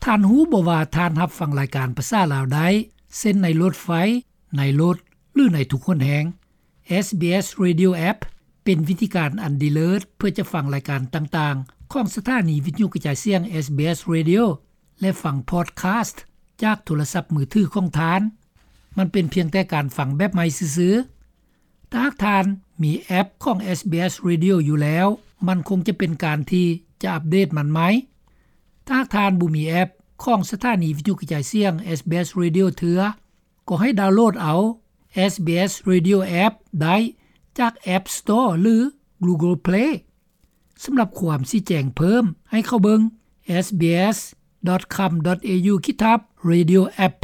ທ່ານຮູ້ບໍ່ວ່າທ່ານຮັບຟັງລາຍການພາສາລາວໄດ້ ເຊັ່ນໃນລົດໄຟ, ໃນລົດ ຫຼືໃນທຸກຫົນແຫ່ງ? ເອສບີເອສເຣດິໂອແອັບ ເປັນວິທີການອັນດີເລີດເພື່ອຈະຟັງລາຍການຕ່າງໆຂອງສະຖານີວິທຍຸກະຈາຍສຽງ ເອສບີເອສເຣດິໂອ ແລະ ຟັງພອດຄາສຈາກໂທລະສັບມືຖືຂອງທ່ານ. ມັນເປັນພຽງແຕ່ການຟັງແບບໃໝ່ຊື່ໆ. ຖ້າຫາກທ່ານມີແອັບຂອງເອສບີເອສເຣດິໂອຢູ່ແລ້ວ ມັນຄົງຈະເປັນການທີ່ຈະອັບເດດມັນໃໝ່. ຖ້າຫາກທ່ານບໍ່ມີແອັບຂອງສະຖານີວິທຍຸກະຈາຍສຽງເອສບີເອສເຣດິໂອເທື່ອ ກໍໃຫ້ດາວໂຫຼດເອົາເອສບີເອສເຣດິໂອແອັບໄດ້ຈາກແອັບສະໂຕ ຫຼື Google Play. ສຳລັບຄວາມຊີ້ແຈງເພີ່ມ ໃຫ້ເຂົ້າເບິ່ງ SBS dot com dot au ຂີດທັບ radio app.